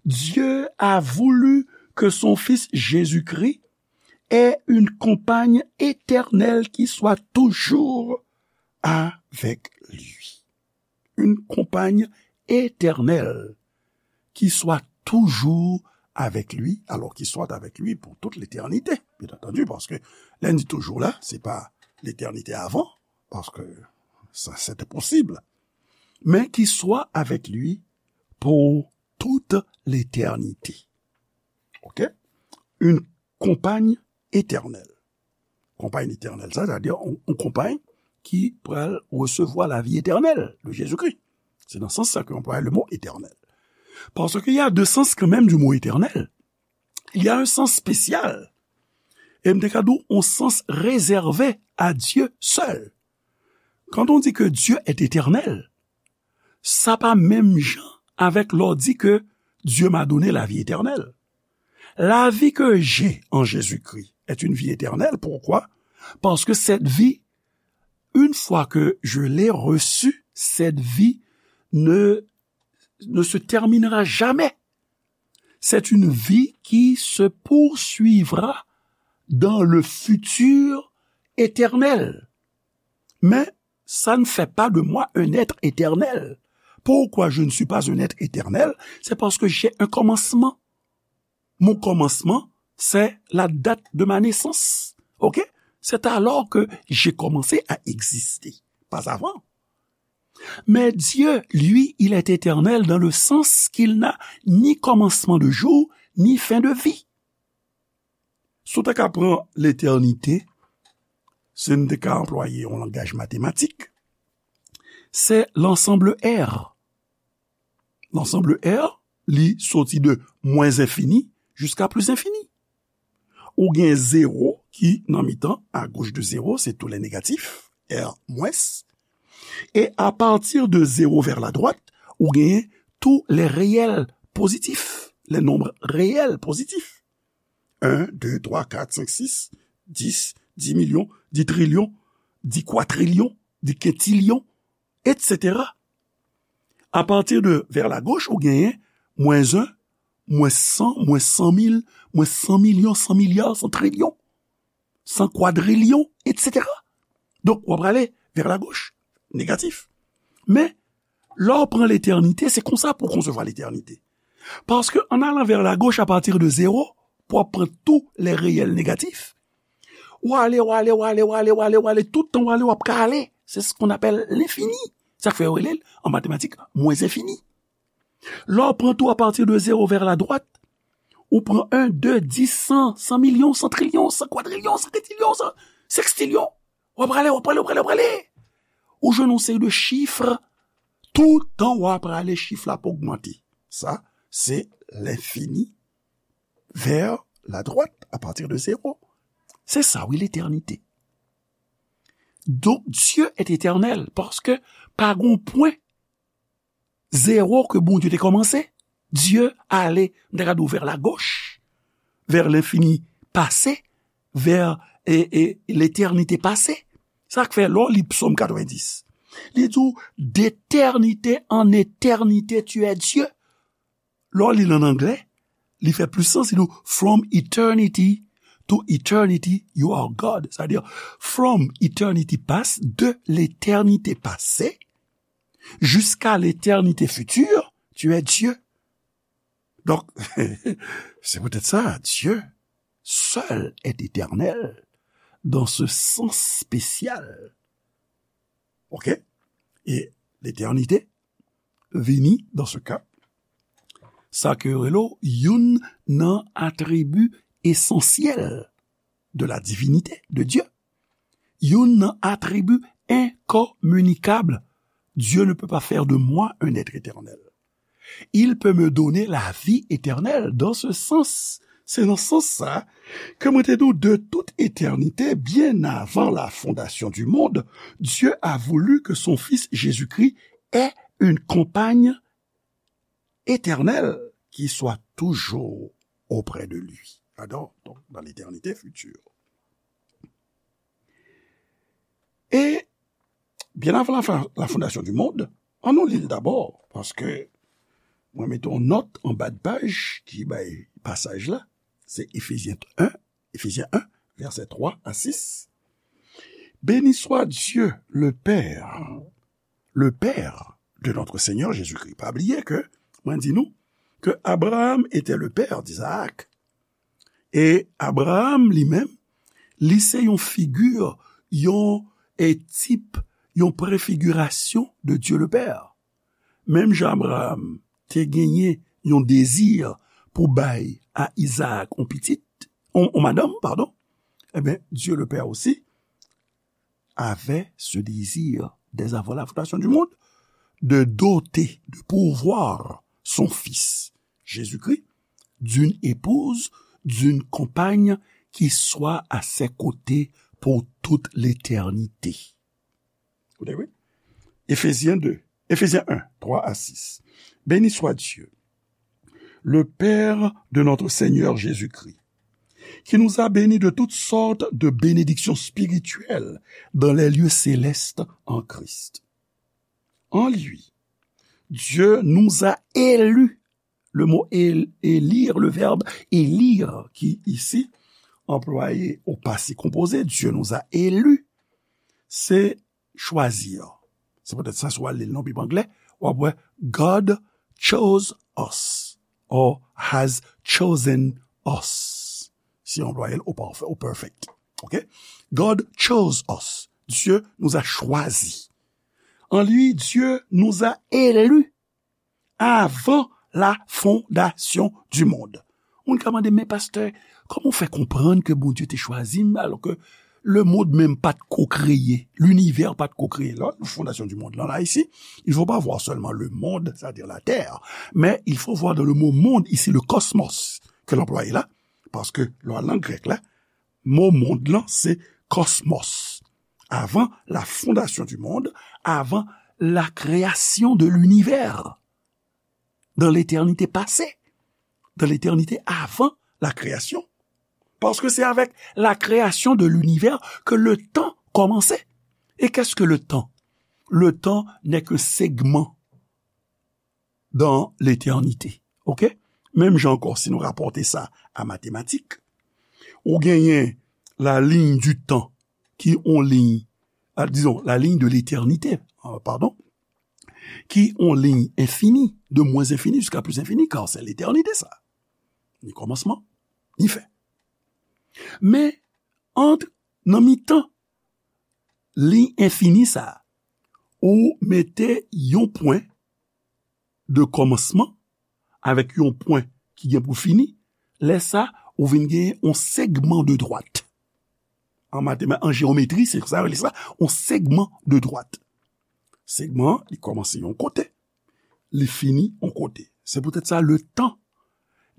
Dieu a voulu que son Fils Jésus-Christ ait une compagne éternelle qui soit toujours avec lui. Une compagne éternelle qui soit toujours avec lui, alors qu'il soit avec lui pour toute l'éternité, bien entendu, paske lè n di toujou la, se pa letènite avan, paske sa, se te posib, men qui soit avec lui pour toute l'éternité. Ok? Une compagne éternelle. Konpay etènèl, sa, sètadi yon, yon konpay ki pral resevwa lavi etènèl de Jezikri. Se nan sans sa ke yo anplwaye le mo éternel. Parce qu'il y a deux sens quand même du mot éternel. Il y a un sens spécial. E m te ka di w, yon sans réservé à Dieu seul. Quand on dit que Dieu est éternel, sa pa menm jan avèk lè w di ke Dieu m'a donné la vie éternelle. La vie que j'ai en Jésus-Christ est une vie éternelle. Pourquoi? Parce que cette vie, une fois que je l'ai reçue, cette vie ne, ne se terminera jamais. C'est une vie qui se poursuivra dans le futur éternel. Men, ça ne fait pas de moi un être éternel. Pourquoi je ne suis pas un être éternel? C'est parce que j'ai un commencement. Mon commencement, c'est la date de ma naissance. OK? C'est alors que j'ai commencé à exister. Pas avant. Mais Dieu, lui, il est éternel dans le sens qu'il n'a ni commencement de jour, ni fin de vie. Si w te ka pran letènite, si n te ka anplwaye yon langaj matematik, se lansanble R. Lansanble R, li soti de mwens enfini jiska plis enfini. Ou gen zewo ki nan mitan, à gauche de zéro, c'est tous les négatifs, R mwens. Et à partir de zéro vers la droite, ou gen tous les réels positifs, les nombres réels positifs. Un, deux, trois, quatre, cinq, six, dix, dix millions, dix trillions, dix quadrillions, dix quintillions, et cetera. À partir de vers la gauche, ou gen mwens un, mwens san, mwens san mil, mwens san milyon, san milya, san trilyon, san kwadrilyon, et cetera. Donk, w ap prale vers la gauche, négatif. Men, lè w pran letènite, se konsa pou w konsevwa letènite. Paske an alan vers la gauche à partir de zéro, pou w ap pran tous les réels négatifs, w ale, w ale, w ale, w ale, w ale, w ale, tout tan w ale, w ap ka ale. C'est ce qu'on appelle l'infini. Sa k fè yo rele l, an matematik, mwens enfini. Lè w pran tou à partir de zéro vers la droite, ou pran un, deux, dix, cent, cent millions, cent trillions, cent quadrillions, cent quintillions, cent sextillions. W ap prale, w ap prale, w ap prale, w ap prale. Ou jwenn yon seri de chif, tout tan w ap prale, chif la ap ogmante. Sa, se lenfini vers la droite, à partir de zéro. Se sa, wi, letènite. Donk, Dieu est éternel, paske pa gen pwen zewo ke Bondye te kòmanse. Dieu ale, m ta ka di w, vers la gauche, vers l'infini passé, vers, e, e, l'éternité passée. Sa k fè, lè w li Psaume quatre-vingt-dix, li di w, d'éternité en éternité, tu es Dieu. Lè w li l an anglè, li fè plis sans, li di w, from eternity to eternity, you are God. Sa vle di, from eternity past, de l'éternité passée, jusqu'à l'éternité future, tu es Dieu. Donc, c'est peut-être ça, Dieu seul est éternel dans ce sens spécial. OK? E letènite vini, dans ce cas, sa ke yo rele youn nan atribi esansyèl de la divinité de Dieu. Youn nan atribi enkominikab. Dieu ne peut pas faire de moi un être éternel. Il peut me donner la vie éternelle. Dans ce sens, se nan sans sa ke mwen te di w, de toute éternité, bien avant la fondation du monde, Dieu a voulu que son Fils Jésus-Christ ait une compagne éternelle qui soit toujours auprès de lui. Adò, donk, dans l'éternité future. E byen avan la, fa- la fondation du monde, ann nou li l dabò, paske mwen mete yon nòt anba de paj ki bay pasaj la, se Efezyen un, Efezyen un, vèsè twa a sis. Béni soit Dieu, le Père, le Père de notre Seigneur Jésus-Christ. Pa bliye ke mwen di nou ke Abraham était le père d'Isaac. E Abraham li menm, li se yon figi, yon, e, tip, yon prefigirasyon de Dieu le Père. Menm jan Abraham te genyen yon dezi pou bay a Izaak yon pitit, yon, yon madanm, padon, ebyen, Dieu le Père aussi avait ce désir dès avant la fondation du monde de doter, de pourvoir son Fils, Jésus-Christ, d'une épouse, d'une compagne qui soit à ses côtés pour toute l'éternité. Koute, wi. Efezyen de, Efezyen un, twa a sis. Béni soit Dieu, le Père de notre Seigneur Jésus-Christ, qui nous a bénis de toutes sortes de bénédictions spirituelles dans les lieux célestes en Christ. En lui, Dieu nous a élus. Le mot él- élire, le verbe élire, qui ici employé au passé composé, Dieu nous a élus, c'est chwazi an. Se poutèt sa, si w al li l nan Bib anglè, w ap wè God chose us or has chosen us. Si w anplwaye l au parfait, au perfect. Ok? God chose us. Dieu nous a choisis. En lui, Dieu nous a élus avant la fondation du monde. Moun ka mande, men pastè, kòman w fè konprann ke Bondye te chwazi m alò ke lemonn menm pa t ko kreye, linivè pa t ko kreye? La, fondation du monde, là, là, ici, il faut pas voir seulement le monde, c'est-à-dire la terre, mais il faut voir dans le mot monde, ici, le cosmos, ke l anplwaye la, paske lè w al nan grèk la, mo mond lan, se cosmos. Avant la fondation du monde, avant la création de l'univers, dans l'éternité passée, dans l'éternité avant la création. Parce que c'est avec la création de l'univers que le temps commençait. Et qu'est-ce que le temps? Le temps n'est qu'un segment dans l'éternité. Ok? Menm jan ankò, si nou rapòte sa a matematik, ou genyen la ligne du temps, ki on liy, ah, disons, la ligne de l'éternité, euh, pardon, ki on liy enfini, de moins infini jusqu'à plus infini, car c'est l'éternité, sa. Ni kòmansman, ni fen. Men, ant, nan mitan liy enfini sa, ou mete yon pwen de kòmansman avèk yon pwen ki gen pou fini, lè sa, ou vin gen yon segman de dwat. An matema-, an jewometri, se sa yo rele sa, yon segman de dwat. Segman an, li kòmanse yon kote, li fini yon kote. Se poutèt sa, le tan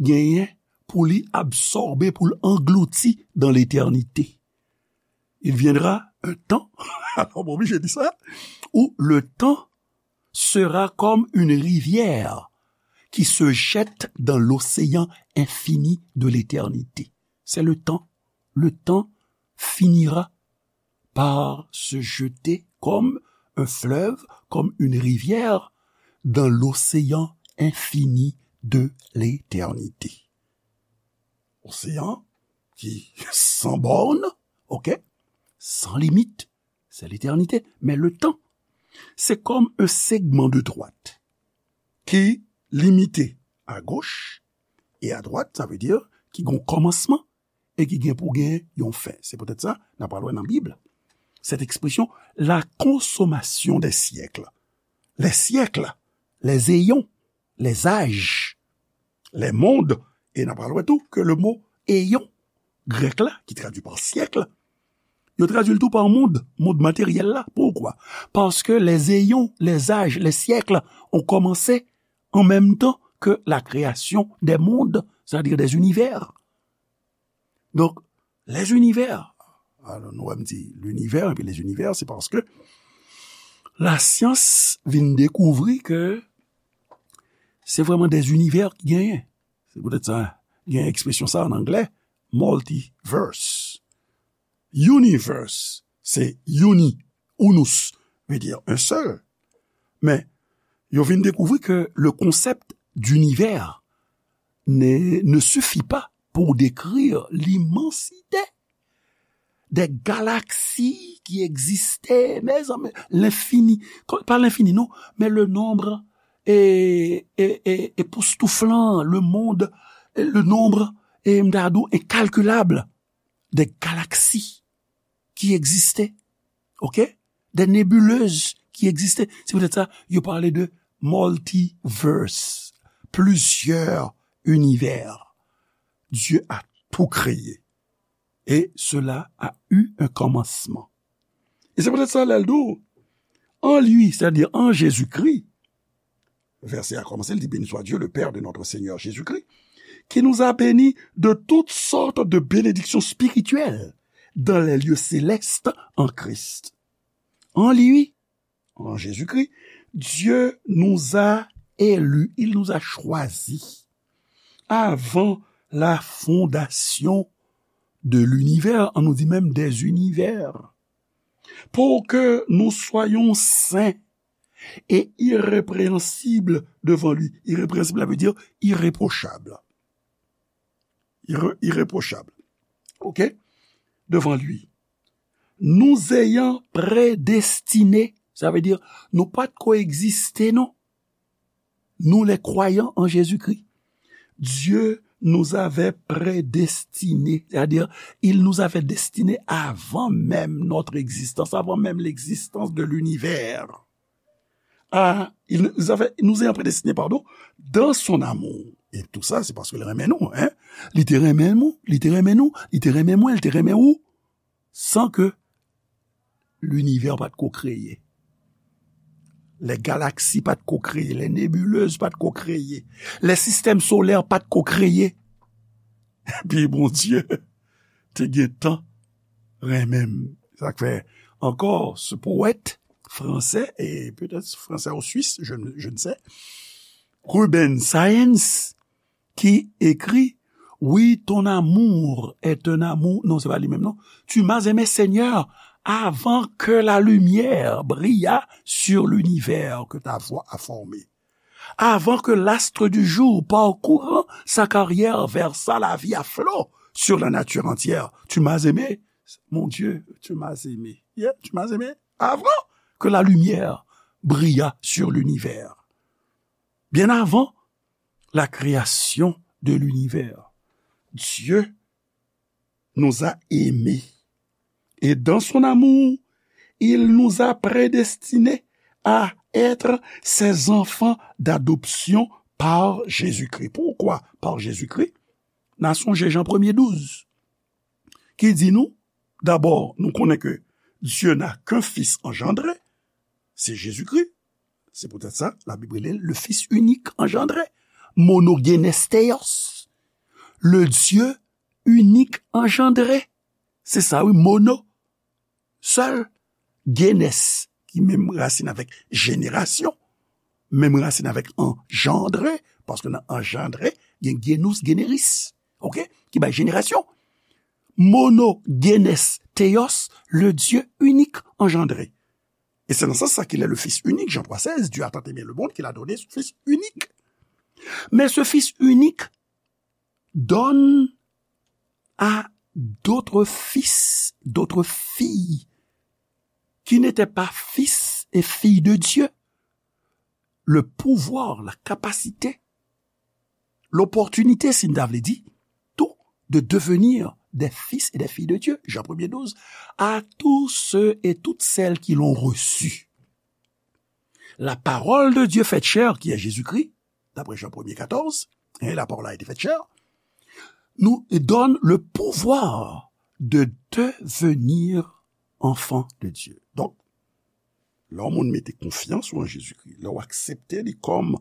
genyen pou li absòbe, pou l anglouti dans l'éternité. Il viendra un temps, alors, mwen oblije di sa, où le temps sera comme une rivière qui se jette dans l'océan infini de l'éternité. C'est le temps. Le temps finira par se jeter comme un fleuve, comme une rivière, dans l'océan infini de l'éternité. Oseyan ki san bòn, ok, san limit, c'est l'éternité. Men le tan, se kòm un segment de droite ki limite à gauche et à droite, sa vle di ki gon kòmansman e ki gen pou gen yon fen. Se poutèt sa, n ap pral wè nan Bib, cette expression, la consommation des siècles. Les siècles, les éons, les âges, les mondes, e n ap pral wè tou ke le mo éon, grèk la, ki tradui pa syèk, yo tradui l tou pa mond, mond materyèl la. Poukwa? Paske les éons, les âges, les siècles ont commencé en même temps que la création des mondes, c'est-à-dire des univers. Donk, les univers. Alò, nou wè m di l'univers epi les univers, se paske lasyans vin dekouvri ke se vrèman des univers ki genyen. Se poutèt sa, gen ekspresyon sa an anglè, multiverse. Universe, se uni, unus, veut dire un seul. Men, yo vin dekouvri ke le concept d'univers ne, ne suffit pas pour décrire l'immensité des galaxies qui existaient, mezanmi, l'infini, pa l'infini, non, mais le nombre e, e, e, epoustouflan, le monde, e, le nombre, e, m ta di w, incalculable des galaxies qui existaient, ok? Des nébuleuses qui existaient. Se poutèt sa, yo pale de multiverse, plusieurs univers. Dieu a tout créé. Et cela a eu un commencement. E se poutèt sa, lè l di w, en lui, c'est-à-dire en Jésus-Christ, vèsè a kòmanse, l di, béni soit Dieu, le Père de notre Seigneur Jésus-Christ, qui nous a bénis de toutes sortes de bénédictions spirituelles dans les lieux célestes en Christ. En lui, en Jésus-Christ, Dieu nous a élus, il nous a choisis avant la fondation de l'univers, an nou di menm des univers, pour que nous soyons saints et irrépréhensibles devant lui. Irrépréhensible, sa vle di irréprochable. Irre-, irréprochable. Ok? Devant lui. Nous ayant prédestinés, sa vle di, nou pa t ko egziste, non. Nous, les croyants en Jésus-Christ, Dieu nous avait prédestinés, c'est-à-dire, il nous avait destinés avant même notre existence, avant même l'existence de l'univers. Ah, il nous avait, nous ayant prédestinés, pardon, dans son amour. E tou sa, se paske l renmen nou, hein? Li te renmen nou, li te renmen nou, li te renmen mwen, li te renmen ou, san ke linivè pa t ko kreye. Lè galaksi pa t ko kreye, lè nebilez pa t ko kreye, lè sistèm solè pa t ko kreye. Epi Bondye te gentan renmen m. Sa k fè ankò, ce poète français, et peut-être français ou suisse, je, ne- je ne sais, Ruben Saenz, ki ekri, Oui, ton amour est un amour, non, se pa li menm, non. Tu m'as aimé, Seigneur, avant que la lumière brillât sur l'univers que ta voix a formé. Avant que l'astre du jour, parcourant sa carrière, versât la vie à flots sur la nature entière. Tu m'as aimé, mon Dieu, tu m'as aimé. Yeah, tu m'as aimé avant que la lumière brillât sur l'univers. Bien avant la création de l'univers, Dieu nous a aimés. Et dans son amour, il nous a prédestinés à être ses enfants d'adoption par Jésus-Christ. Pourquoi par Jésus-Christ? N a sonje Jan premye douz, ki di nou, dabò, nou konnen ke Dieu n'a qu'un fils engendré, se Jezikri. Se poutèt sa, Labib rele l le Fils unique engendré, monogenes theos, le Dieu unique engendré. Se sa, wi, mono, sèl, genes, ki menm rasin avèk jenerasyon, menm rasin avèk engendré, paske nan engendré, gen genous, generis, ok, ki bay jenerasyon. Monogenes theos, le Dieu unique engendré. Et c'est dans ce sens qu'il est le Fils unique, Jean trois seize, Dieu a tant aimé le monde qu'il a donné son Fils unique. Mais ce Fils unique donne à d'autres fils, d'autres filles qui n'étaient pas fils et filles de Dieu, le pouvoir, la capacité, l'opportunité, si n ta vle di, tout, de devenir des fils et des filles de Dieu, Jean premier douze, à tous ceux et toutes celles qui l'ont reçu. La parole de Dieu faite chair, qui est Jésus-Christ, d'après Jean premier quatorze, hein, la parole a été faite chair, nous donne le pouvoir de devenir enfant de Dieu. Donk, lè yon moun mete konfyans ou an Jezikri, lè w aksepte li kòm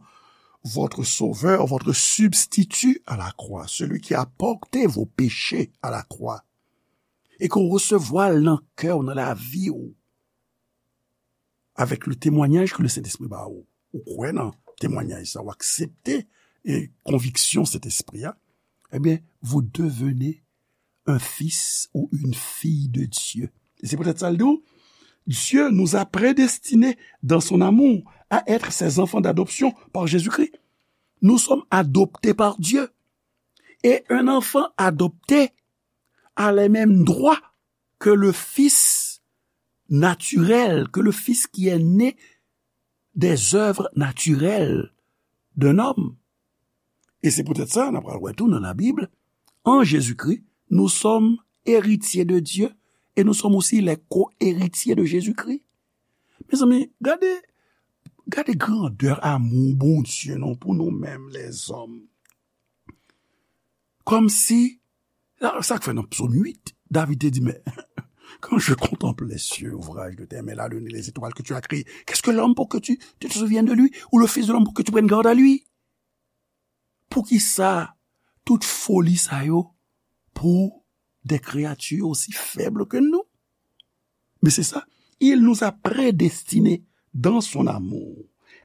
votre sauveur, votre substitut à la croix, celui qui a porté vos péchés à la croix, e ke w resevwa l nan kè w, nan lavi w, avec le témoignage que le Saint-Esprit ba ou, ou kwè nan temwanyaj sa, ou aksepte e konviksyon Sentespri a, ebyen, vous devenez un fils ou une fille de Dieu. Et c'est peut-être ça le dit, Dieu nous a prédestinés dans son amour à être ses enfants d'adoption par Jésus-Christ. Nous sommes adoptés par Dieu. Et un enfant adopté a les mêmes droits que le fils naturel, que le fils qui est né des œuvres naturelles d'un homme. E se poutèt sa, n ap pral wè tou nan Labib, en Jésus-Christ, nous sommes héritiers de Dieu et nous sommes aussi les co-héritiers de Jésus-Christ. Mezanmi, gade, gade grandè amou Bondye non pou nou menm lèzòm. Kòmsi, sa k fè nan Psaume huit, David te di, mais quand je contemple les cieux, ouvrage de tes mains, la lune et les étoiles que tu as créées, qu'est-ce que l'homme pour que tu, tu te souviennes de lui, ou le fils de l'homme pour que tu prennes garde à lui? Poukisa tout foli sa yo pour des créatures aussi faibles que nous? Mais c'est ça. Il nous a prédestinés dans son amour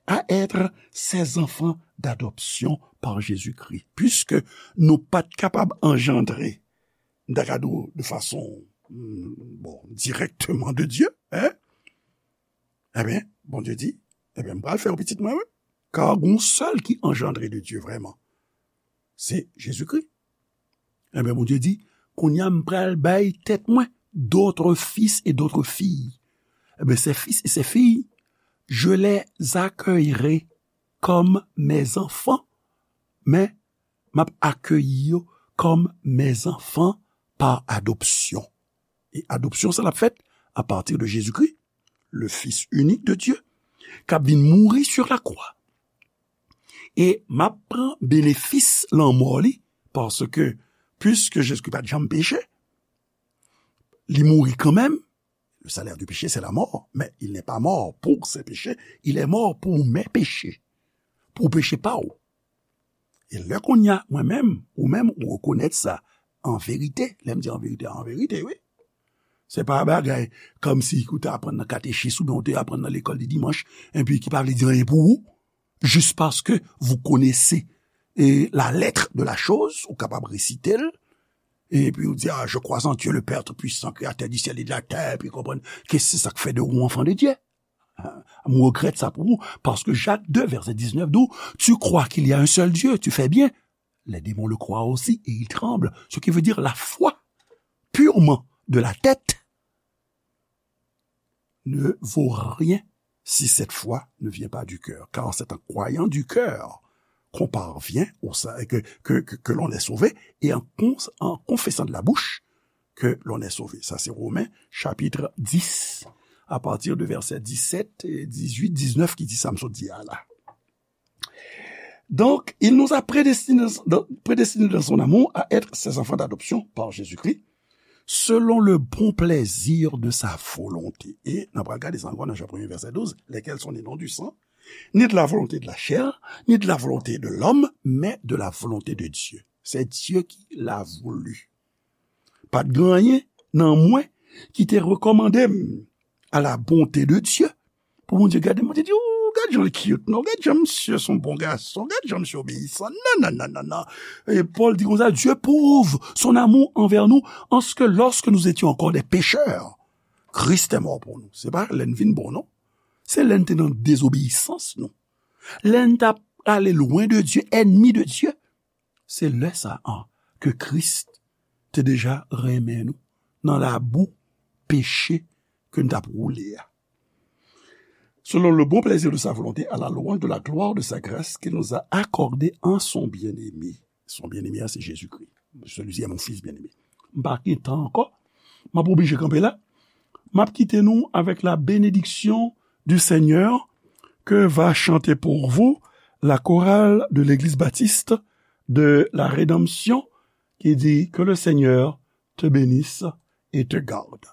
à être ses enfants d'adoption par Jésus-Christ. Puisque nou pa t kapab anjandre, m ta ka di w, de fason, mm, bon, directement de Dieu, hein? Ebyen, Bondye di, ebyen, m pral fè w pitit mwen, wi. Kar gon sèl ki anjandre de Dieu vrèman, se Jezikri. Ebyen, Bondye di, kounye a m pral bay tèt mwen d'autres fils et d'autres filles. Eh bien, ces fils et ces filles, je les accueillerai comme mes enfants, mais m ap akeyi yo comme mes enfants par adoption. E adopsyon sa l ap fèt à partir de Jésus-Christ, le Fils unique de Dieu, k ap vin mouri sur la croix. E m ap pran benefis lanmò li, paske, puiske Jezikri pa t janm peche, li mouri kanmenm. Le salaire du péché, c'est la mort, mais il n'est pas mort pour ses péchés, il est mort pour mes péchés, pou peche pa w. E lè kounye a, mwen menm, ou menm, ou rekonèt sa an verite. Lè m di an verite, an verite, wi. Se pa bagay kòmsi ou te aprann nan katechis oubyen ou te aprann nan lekòl de dimanch, epi ki pa vle di anyen pou ou, juste parce que vous connaissez et la lettre de la chose, ou kapab resite l, epi ou di, ah, je crois en Dieu, le Père Tout-Puissant, créateur du ciel et de la terre, epi konprann ke se sa k fè de ou enfant de Dieu. Ah, m regrèt sa pou ou, paske Jak de, vèsè diznèf di w, tu crois qu'il y a un seul Dieu, tu fais bien. Les démons le croient aussi et ils tremblent. Ce qui veut dire la foi purement de la tête ne vaut rien si cette foi ne vient pas du cœur. Car c'est en croyant du cœur qu'on parvient au sa-, que, que, que, que l'on est sauvé, et en con-, en confessant de la bouche que l'on est sauvé. Ça, c'est Romains chapitre dix, à partir de verset dix-sept, dix-huit, dix-neuf, ki di sa m sot di a la. Donc, il nous a prédestinés, prédestinés dans son amour à être ses enfants d'adoption par Jésus-Christ, selon le bon plaisir de sa volonté. E n ap gade sa ankò nan Jan premye, vèsè douz, lesquels sont nés non du sang, ni de la volonté de la chair, ni de la volonté de l'homme, mais de la volonté de Dieu. C'est Dieu qui l'a voulu. Pa t gen anyen nan mwen ki te rekòmande m à la bonté de Dieu. Pou Bondye gade m, Bondye di, ou gad jan l cute, non? Gad jan misye se yon bon gason, gad jan misye obeyisan. Non, non, non, non, non. E Pòl di konsa, Dieu prouve son amour envers nous en ce que lorsque nous étions encore des pécheurs, Christ est mort pour nous. Se pa lè n vin bon, non. Se lè n te nan dezobeyisans nou. Lè n t ap ale lwen de Dieu, ennemi de Dieu. Se lè sa a ke Kris te deja renmen nou nan labou peche ke n t ap woule a. Selon le bon plaisir de sa volonté, à la louange de la gloire de sa grâce qu'il nous a accordée en son bien-aimé. Son bien-aimé, se Jezikri. Celui-ci est mon fils bien-aimé. M pa gen tan ankò. M ap oblije kanpe la. M ap kite nou avec la bénédiction du Seigneur que va chanter pour vous la chorale de l'église baptiste de la Rédemption qui dit que le Seigneur te bénisse et te garde.